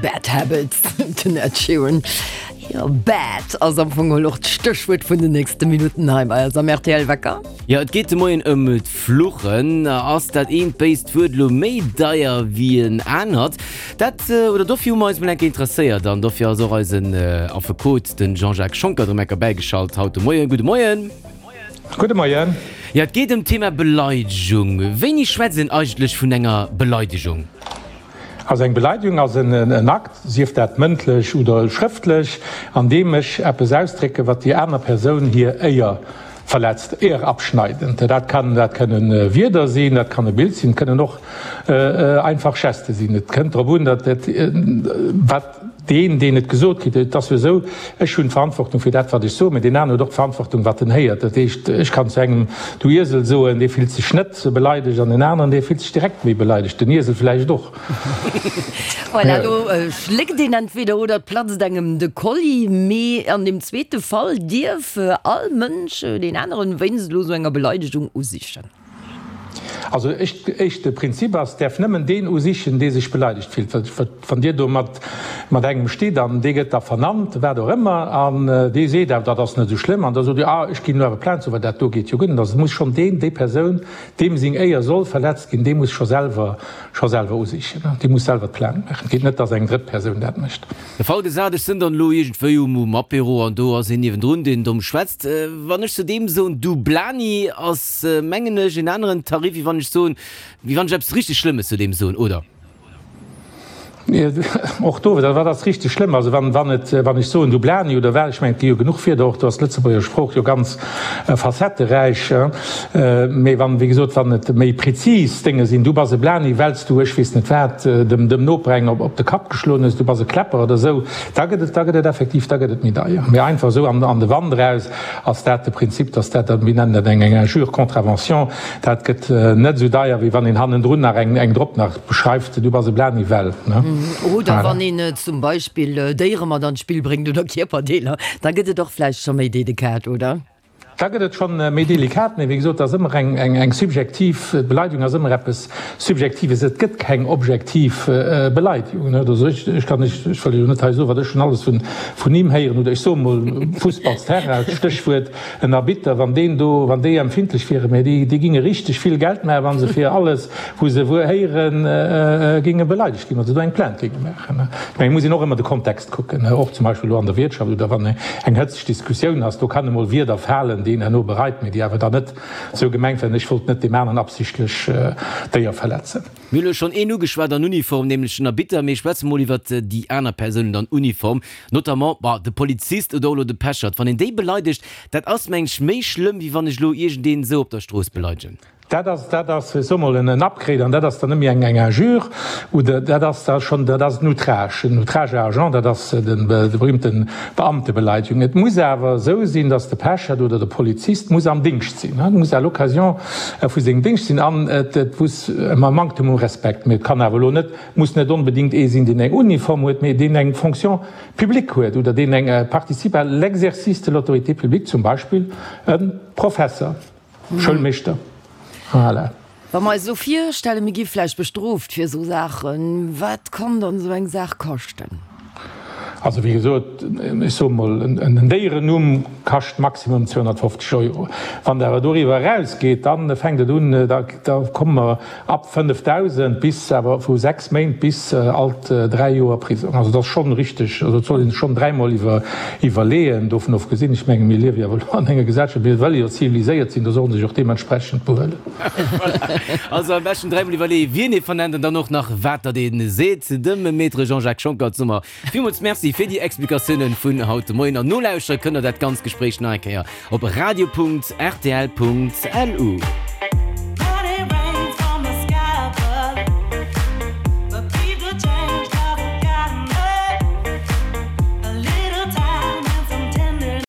Bad Habits, den Ed Sheeran. Jo, bad ass am Fong och d'Stéchwuert vun den nächste Minutten hei bei eis am RTL Wecker. Jo, et geet de Moien ëm d'Fluchen. Ass dat eent béist Wuert elo méi deier wéi en anert? Dat, oder dofir hu mer eis mol eng Kéier interesséiert an dofir ass och eisen Affekot, de Jean-Jacques Schonckert, erëm eng Kéier bäigeschalt haut de Moien. Gudde Moien. Gudde Moien. Jo, et geet ëm d'Thema Beleidegung. Wéini schwätzt een eigentlech vun enger Beleidegung? Also eng Beleidegung ass en Akt, sief dat mëndlech oder schrëftlech, an deem ech eppes ausdrécken, wat déi aner Persoun hir Éier verletzt, ehrabschneidend. Dat kann, dat kënnen Wierder sinn, dat kann e Bild sinn, et kënnen och einfach Geste sinn. Et kënnt drop un, datt dat, wat deen, deen et gesot kritt, et ass jo esou, ech hunn d'Verantwortung fir dat, wat ech soen, mä deen aneren huet och d'Verantwortung, wat en héiert. Dat heescht, ech kann zu engem du Iesel soen, dee fillt sech net beleidegt, an en aneren, dee fillt sech direkt méi beleidegt, den Iesel vläicht och. Voilà, elo schléckt een entweder oder et platzt engem de Kolli, mee an deem zweete Fall dierf all Mënsch deen aneren wéinst elo esou enger Beleidegung usichen. Also éischte Prinzip ass, däerf nëmmen deen usichen, dee sech beleidegt fillt. Wann Dir do mat engem stitt an dee gëtt da vernannt, wat och ëmmer, an dee seet awer, dat ass net esou schlëmm, an da sot Dir, ah, ech ginn elo awer Plainte, sou, well dat do geet jo guer net. Also et muss schonn deen, déi Persoun, deem seng Éier soll verletzt ginn, dee muss scho selwer, scho selwer usichen, dee muss selwer d'Plainte maachen. Et geet net, datt eng drëtt Persoun dat mécht. De Fall gesat, ech sënn dann elo iergendwéi um Apéro an do ass een niewendrun, deen domm schwätzt. Wann ech zu deem soen, du Blani, ass, mengen ech, en aneren Tarif, wéi wann ech soen, wéi wann ech eppes richteg Schlëmmes zu deem soen, oder? Och do, wat ass richteg schlëmm? Also wann, wann et, wann ech soen, du Blani oder wat, ech mengen, et gi jo genuch Wierder, och do ass d'Lëtzebuerger Sprooch jo ganz facetteräich. Mee wann, wéi gesot, wann et méi prezis Dénge sinn, du bass e Blani, well s du, ech weess net wat, dem, dem Noper eng op, op de Kapp geschloen hues, du bass e Kläpper oder esou, da gëtt et, da gëtt et effektiv, da gëtt et méi deier. Mee einfach esou an, an de Wand eraus ass dat de Prinzip, dass dat, mir nennen dat eng, eng Injure contravention, dat gëtt net esou deier, wéi wann een hannendrun nach eng, eng drop nach beschreift, du bass e Blani, well, ne? Oder wann een zum Beispill Déiere mat an d'Spill bréngt oder Kierperdeeler, da gëtt et och vläicht scho méi delikat, oder? Da gëtt et schonn méi delikat, mee wéi gesot, et ass ëmmer eng subjektiv, d'Beleidigung ass ëmmer eppes Subjektives, et gëtt keng objektiv Beleidigung. Also ech kann, ech wëll elo net hei soen, wat ech schonn alles vun him héieren, oder ech soe mol Fussballsterrain, Stéchwuert en Arbitter, wann deen do, wann déi empfindlech wieren, mä déi géinge richteg vill Geld maachen, wa se fir alles, wou se wuer héieren, géinge beleidegt ginn, wa se do eng Plainte géinge maachen. Ech mengen, et muss een och ëmmer de Kontext kucken, och zum Beispill elo an der Wiertschaft oder wann eng Hëtzt Diskussioun ass, do kann emol Wierder falen, déi een herno bereit, mee déi awer dann net esou gemengt waren, ech wollt net deem aneren absichtlech d'Éier verletzen. Mir hunn elo schonn een ugeschwat an Uniform, nämlech den Arbitter, mee schwätze mol iwwert déi aner Persounen an Uniform, notamment, bon, de Polizist oder och elo de Pechert. Wann een déi beleidegt, dat ass, meng ech, méi schlëmm, wéi wann ech elo iergendeen esou op der Strooss beleidegen. Dat ass, dat ass, ech soe mol, en Upgrade an dat ass dann net méi eng, eng Injure oder dat ass da schonn, dat ass en Outrage, en Outrage à agent, dat ass de, de berühmten Beamtebeleidigung. Et muss awer esou sinn, dass de Pechert oder de Polizist muss am Dingscht sinn, e muss à l'occasion vu sengem Dingscht sinn an et, et muss e Manktem u Respekt, mee et kann awer elo net, muss net onbedéngt ee sinn, deen eng Uniform huet, mee deen eng Fonction publique huet oder deen eng participe à l'exercice de l'autorité publique, zum Beispill e Professer. Schoulmeeschter, voilà. Wa mer eis elo virstellen, mir gi vläicht bestrooft fir esou Saachen, wat kann dann esou eng Saach kaschten? Also wéi gesot, ech soe mol, en Déierennumm kascht maximum 250 Euro. Wann et awer doriwwer erausgeet, da fänkt et un, da komme mer Ab 5.000 bis awer vu 6 Méint bis alt 3 Joer Prisong. Also dat ass schonn richteg, also et soll ee sech schonn dräimol iwwerleeën. Dovun ofgesinn, ech menge mir liewe jo awer elo an enger Gesellschaft, mir wëlle jo ziviliséiert sinn, do soll ee sech och deementsprechend behuelen. Also am beschten dräimol iwwerleeë wien ee vernennt an dann och nach wat datt ee seet. Dem Maître Jean-Jacques Schonckert soe mer villmools Merci fir déi Explikatiounen vun haut de Moien. An nolauschtere kënnt der dat ganzt Gespréich nach eng Kéier op radio.rtl.lu.